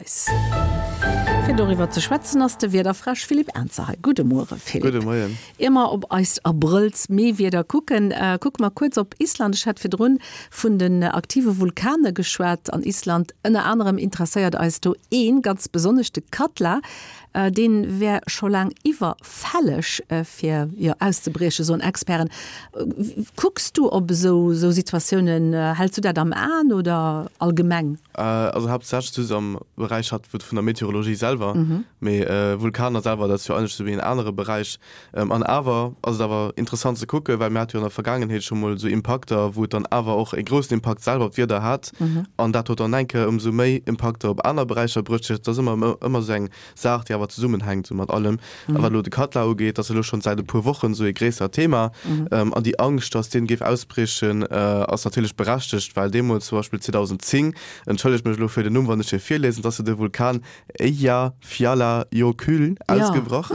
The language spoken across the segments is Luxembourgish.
eis. Fir doriwwer ze schwätzen ass de Wiederfräsch Philippe Ernzer hei. Gudde Muere Philippe. Gudde Moien. Ier mer op eist Abrëlls-Mee-Wieder kucken, kucke mer kuerz op Island. Ech hat virdrun vun den aktive Vulkane geschwat an Island. Ënner anerem interesséiert eis do ee ganz besonnesch, de Katla. Dee wär scho laang iwwerfälleg fir, jo, auszebriechen, soen Experten. Kucks du op esou Situatiounen? Häls du dat am Aen oder allgemeng? Also haaptsächlech just am Beräich hat vun der Meteorologie selwer, mee Vulkaner selwer, dat ass jo eigentlech esou wéi en anere Beräich. An awer ass et awer interessant ze kucken, well mir hate jo an der Vergaangenheet scho mol esou Impakter, wou et dann awer och e groussen Impakt selwer op d'Wieder hat. An dat huet dann eng Kéier ëmsou méi Impakter op aner Beräicher bruecht. Dat ass ëmmer, ëmmer esou eng Saach, déi awer zesummenhänkt esou mat allem. A wat elo de Katla ugeet, dat ass elo schonn säit e puer Wochen esou e gréissert Thema. An déi Angscht, datt deen géif ausbriechen, ass natierlech berechtegt, well deemools zum Beispill 2010, entschëllegt mech elo fir den Numm, wann ech hie virliesen, datt se de Vulkan Eyjafjallajökull ausgebrach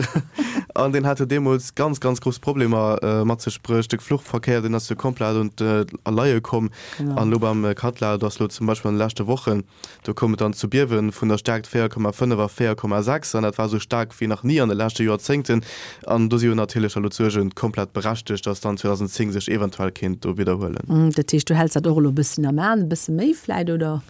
an deen hat jo deemools ganz, ganz grouss Problemer mat sech bruecht. De Fluchverkéier, deen ass jo komplett un d'Leie komm. An elo beim Katla, do ass elo zum Beispill an de leschte Wochen, do koum et dann zu Biewe vun der Staarkt 4,5 a 4,6 an dat war esou staark wéi nach ni an de leschte Joerzéngten. An do si jo natierlech elo d'Suerge komplett berechtegt, datt dann 2010 sech eventuell kéint do widderhuelen. Dat heescht, du häls dat och elo e bësschen am Aen, e bësse méi vläit, oder?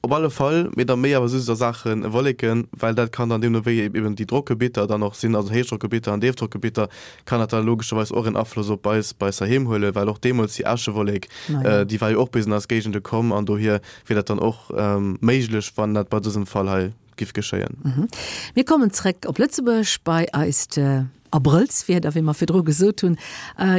Op alle Fall, mee da méi awer just a Saache Wolleken, well dat kann dann deemno wéi eben déi Drockgebitter dann och sinn, also Héichdrockgebitter an Déifdrockgebitter, kann dat da logescherweis och en Afloss op eis bei eis heiheem huelen, well och deemools déi Äschewollek, déi war jo och bis an eis Géigende komm an dohier wier dat dann och méiglech, wann dat bei dësem Fall hei giff geschéien. Mir kommen zréck op Lëtzebuerg bei eist Abrëllswieder, wéi mer virdru gesot hunn.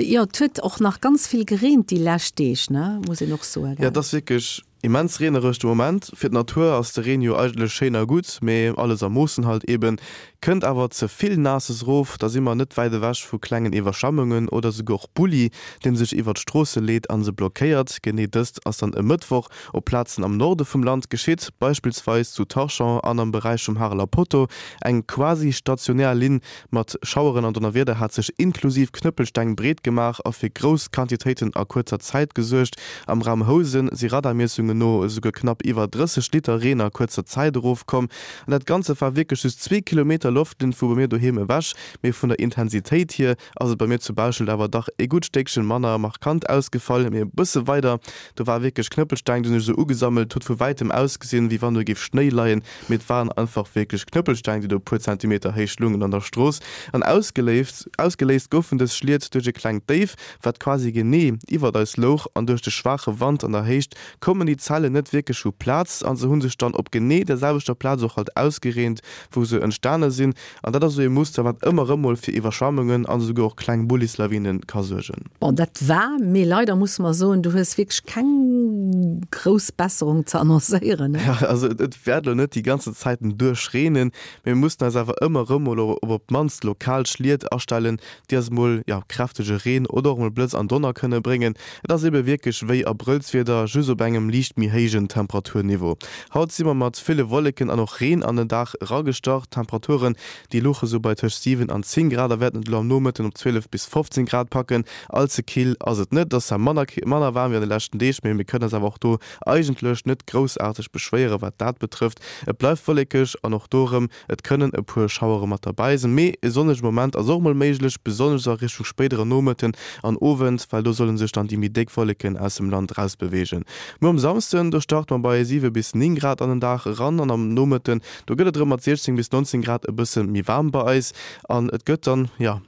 Jo, et huet och nach ganz vill gereent déi lescht Deeg, ne, muss een och soen, gell? Jo, et ass wierklech Immens reenereg de Moment. Fir d'Natur ass de Reen jo eigentlech schéin a gutt, mee alles a Moossen halt eben. Kënnt awer ze vill Naasses rof, da si mer net wäit ewech vu klengen Iwwerschwemmungen oder souguer och Bulli, deen sech iwwert d'Stroosse leet an se blockéiert. Genee dëst ass dann e Mëttwoch op Plazen am Norde vum Land geschitt, beispillsweis zu Tarchamps an am Beräich vum Hareler Poteau. Eng quasi stationär Linn Mat Schaueren an Donnerwieder hat sech inklusiv Knëppelsteng breet gemaach a fir grouss Quantitéiten a kuerzer Zäit gesuergt. Am Raum Housen si Radarmiessungen no esouguer knapp iwwer 30 Liter Reen a kuerzer Zäit erofkomm. An dat Ganze war wierklech just zwee Kilometer Loftlinn vu bei mir doheem ewech, mee vun der Intensitéit hier ass et bei mir zu Bauschelt awer dach e gutt Stéckchen manner markant ausgefall. Mee e bësse weider, do war wierklech Knëppelsteng, déi hunn sech esou ugesammelt, huet vu wäitem ausgesinn, wéi wann do géif Schnéi leien. Mee et waren einfach wierklech Knëppelsteng, déi do e puer Zentimeter héich lungen an der Strooss. An ausgeléist ausgeléist goufen dës Schliet duerch e klengt Déif, wat quasi genee iwwert eis louch. An duerch de schwaache Wand an der Héicht koumen déi Zellen net wierklech vu Plaz a se hu sech dann op genee der selwechter Plaz och halt ausgereent, wou se entstane sinn. An dat ass esou ee Muster, wat ëmmer erëm mol fir Iwwerschwemmungen an esouguer och kleng Bullislawine ka suergen. Bon, dat war, mee leider musse mer soen, du hues wierklech keng grouss Besserung ze annoncéieren, ne? Jo, also et wäert elo net déi ganzen Zäiten duerch reenen, mee mir mussen eis awer ëmmer erëm mol op op d'mannst lokal Schliet astellen, déi eis mol, jo, kräftege Reen oder och mol Blëtz an Donner kënne bréngen. Et ass ebe wierklech wéi Abrëllswieder, just op engem liicht méi héijen Temperaturniveau. Haut si mer mat ville Wolleken an och Reen an den Dag eragestart. D'Temperaturen, déi louche sou bei tëscht 7 an 10 Grad a wäerten et elo am Nomëtten op 12 bis 15 Grad packen. All ze kill ass et net, et ass zwar manner manner waarm wéi an de leschten Deeg, mee mir kënnen eis awer och do eigentlech net groussaarteg beschwéiere wat dat betrëfft. Et bleift wollekeg an och do erëm Et kënnen e puer Schauere mat derbäi sinn, mee e sonnege Moment ass och mol méiglech, besonnesch a Richtung spéidere Nomëtten an Owend, well do solle sech dann déi méi déck Wolleken aus dem Land erausbeweegen. Muer um Samsden, do starte mer bei 7 bis 9 Grad an den Dag eran an am Nomëtten, do gëtt et erëm mat 16 bis 19 Grad e bësse méi waarm bei eis an et gëtt dann, jo,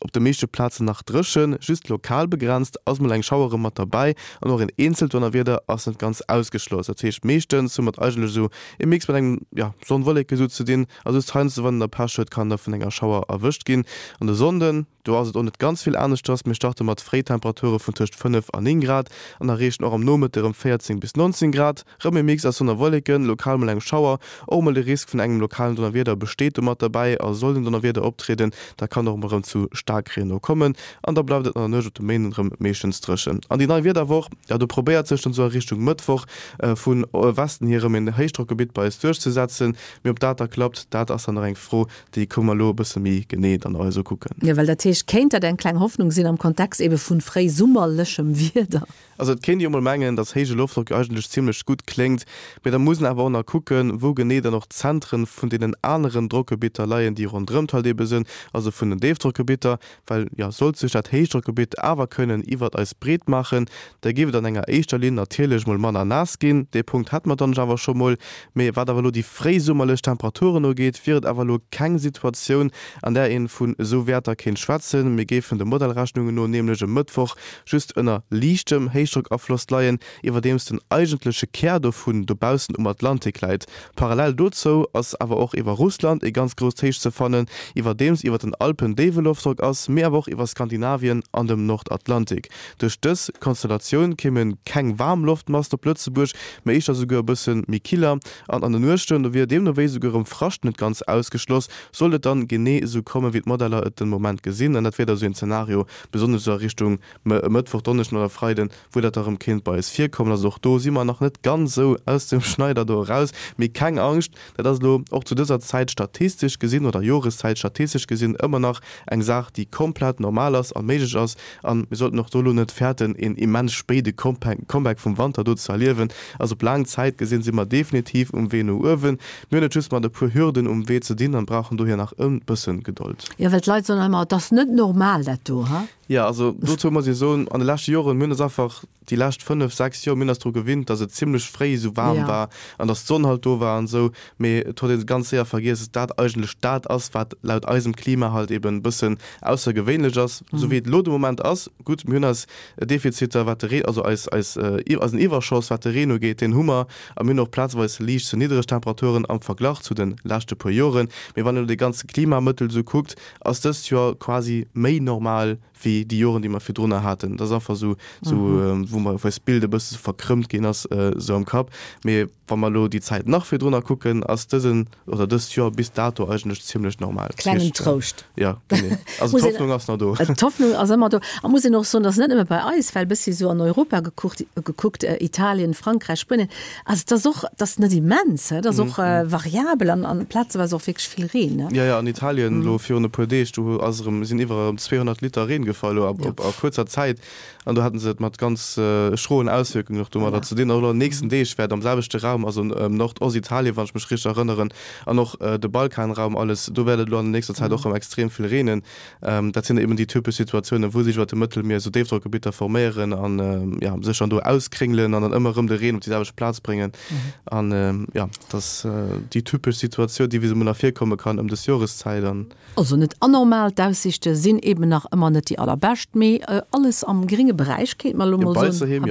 Op de meeschte Plazen nach dréchen, just lokal begrenzt ass mol eng Schauer erëm mat derbäi an och een eenzelt Donnerwieder ass net ganz ausgeschloss. Dat heescht meeschtens hu mer et eigentlech esou e Mix mat engem, jo, Sonn-Wolleke sou ze dinn a just heiansdo wann een da Pech huet kann da vun enger Schauer erwëscht ginn. An de Sonnden, do ass et och net ganz vill aneschters, mir starte mat Fréitemperature vun tëscht 5 a 9 Grad an erreechen och am Nomëtte erëm 14 bis 19 Grad. Rëm e Mix aus Sonn a Wolleken, lokal mol eng Schauer, och mol de Risk vun engem lokalen Donnerwieder besteet do mat derbäi. A soll den Donnerwieder optrieden, da kann och mol rëm zu Staarkreen no kommen an da bleift et an der Nuecht op de Méinden rëm meeschtens dréchen. An déi nei Wiederwoch, jo do probéiert sech dann esou a Richtung Mëttwoch vu Westen hier rëm en Héichdrockgebitt bei eis duerchzesetzen, mee ob dat da klappt, dat ass dann nach eng Fro, déi kënne mer elo e bësse méi genee dann eis ukucken. Jo, well dat heescht. Vläicht kéint dat eng kleng Hoffnung sinn am Kontext ebe vun fréisummerlechem Wieder. Also et kéint ee jo mol mengen, dass héije Loftdrock jo eigentlech zimmlech gutt kléngt, mee da muss een awer och nach kucken, wou genee dann och d'Zentren vun deenen aneren Drockgebitter leien, déi ronderëmt halt ebe sënn, also vun den Déifdrockgebitter. Well, jo, sollt sech dat Héichdrockgebitt awer kënnen iwwert eis breet maachen, da géif et an enger éischter Linn natierlech mol manner naass ginn. Dee Punkt hate mer dann awer scho mol. Mee wat awer elo déi fréisummerlech Temperaturen ugeet, wier et awer elo keng Situatioun, an där een vun esou Wäerter kéint schwätzen. Mir géifen de Modellrechnungen no nämlech e Mëttwoch just ënner liichtem Héichdrockafloss leien, iwwerdeems den eigentleche Kär dovun dobaussen um Atlantik läit. Parallel dozou ass awer och iwwer Russland ee ganz grousst Héich ze fannen, iwwerdeems iwwer den Alpen déiwe Loftdrock ass, mee awer och iwwer Skandinavien an dem Nordatlantik. Duerch dës Konstellatioun kéime keng waarm Loftmassen op Lëtzebuerg, mee éischter souguer e bësse méi killer an an de Nuechten, do wier deemno wéi souguer erëm Frascht net ganz ausgeschloss, sollt et dann genee esou kommen, wéi d'Modeller et den Moment gesinn. An dat wier da sou een Zenario, besonnesch esou a Richtung Mëttwoch, Donneschden oder Freiden, wou dat da rëm kéint bei eis virkommen. Also och do si mer nach net ganz esou aus dem Schneider do eraus. Mee keng Angscht, dat ass elo och zu dëser Zäit statistesch gesinn oder Joreszäit statistesch gesinn ëmmer nach eng Saach, déi komplett normal ass a méiglech ass. A mir sollten och do elo net fäerten, een immens spéide Comeback vum Wanter do ze erliewen. Also op laang Zäit gesinn si mer definitiv um Wee no uewen. Mir hunn et just mat e puer Hürden um Wee ze dinn an brauchen dohier nach e bëssen Gedold. Jo, well d'Leit soen ëmmer, et ass net normal dat do, ha? Jo, also dozou muss ee soen, an de leschte Joren, mir hunn eis einfach déi lescht 5, 6 Joer, mir hunn eis dru gewinnt, datt et zimlech fréi esou waarm war an datt d'Sonn halt do war an esou, mee et huet ee ganz séier vergiess, datt dat eigentlech dat ass, wat laut eisem Klima halt eben e bëssen aussergewéinlech ass, esou wéi et elo de Moment ass. Gutt, mir hunn eis Defiziter, wat de Reen, also eis, eis, eisen Iwwerschoss, wat de Reen ugeet, deen hu mer a mir hunn och plazeweis liicht ze niddereg Temperaturen am Verglach zu de leschte puer Joren. Mee wann een elo dee ganze Klimamëttel esou kuckt, ass dëst Joer quasi méi normal wéi déi Joren, déi mer virdrunner haten. Dat ass einfach esou, esou wou mer, wou eist Bild e bësse verkrëmmt ginn ass esou am Kapp. Mee wa mer elo déi Zäit nach virdrunner kucken, ass dësen oder dëst Joer bis dato eigentlech zimmlech normal. Klengen Trouscht. Jo, genee. Also d'Hoffnung ass nach do. D'Hoffnung ass ëmmer do. A muss een och soen, dass net nëmme bei eis, well e bëssi esou an Europa gekuckt, gekuckt, Italien, Frankräich, Spuenien, Also et ass och, et ass net immens, et ass och variabel an an plazeweis och wierklech vill Reen, ne? Jo, jo, an Italien elo virun e puer Deeg, do ass erëm, sinn iwwer erëm 200 Liter Reen gefall elo a a kuerzer Zäit an do haten se et mat ganz schroen Auswierkungen och domadder ze dinn. Och elo an den nächsten Deeg wäert am selwechte Raum, also Nordostitalien, wann ech mech richteg erënneren, an och de Balkanraum, alles, do wäert et elo an der nächster Zäit och erëm extrem vill reenen. Dat sinn eben déi typesch Situatiounen, wou sech iwwer dem Mëttelmier esou Déifdrockgebitter forméieren an ja, sech dann do auskréngelen an dann ëmmer erëm de Reen op déi selwecht Plaz bréngen. An ja, dat ass déi typesch Situatioun, déi wéi se emol nach virkomme kann ëm dës Joreszäit. An. Also net anormal, d'Aussiichte sinn eben nach ëmmer net déi allerbescht, mee alles am grénge Beräich, kéint mer elo mol soen. Jo, bei eis doheem, jo.